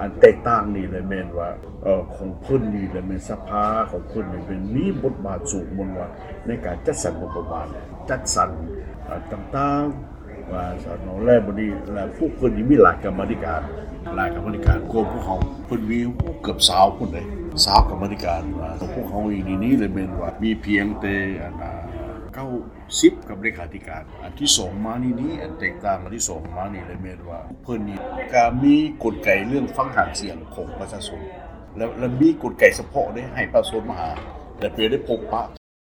ອັນແຕກຕ່າງນີ້ແຫຼະແມ່ນວ່າ ເອີ ຂອງເພິ່ນນີ້ແຫຼະແມ່ນສະພາຂອງເພິ່ນນີ້ແມ່ນມີບົດບາດສູງ ແມ່ນວ່າໃນການຈັດສັນງົບປະມານ ຈັດສັນ ເອີ ຕ່າງໆ ວ່າຊັ້ນເນາະ ແລະບັດນີ້ ແລະພວກເພິ່ນນີ້ມີຫຼາຍກຳມາທິການ ຫຼາຍກຳມາທິການກວ່າພວກເຮົາ ເພິ່ນມີເກືອບຊາວພຸ້ນເດ້ ຊາວກຳມາທິການ ວ່າພວກເຮົາເອງນີ້ ນີ້ແຫຼະແມ່ນວ່າມີພຽງແຕ່ອັນ ເກົ້າສິບ ກັບເລຂາທິການ. ອັນທີສອງມານີ້ນີ້ ອັນແຕກຕ່າງອັນທີສອງມານີ້ແຫຼະແມ່ນວ່າ ເພິ່ນນີ້ກະມີກົນໄກເລື່ອງຟັງຫາງສຽງຂອງປະຊາຊົນ ແລະ ແລະມີກົນໄກສະເພາະເດ້ ໃຫ້ປະຊາຊົນມາຫາ ແລະໄປໄດ້ພົບປະ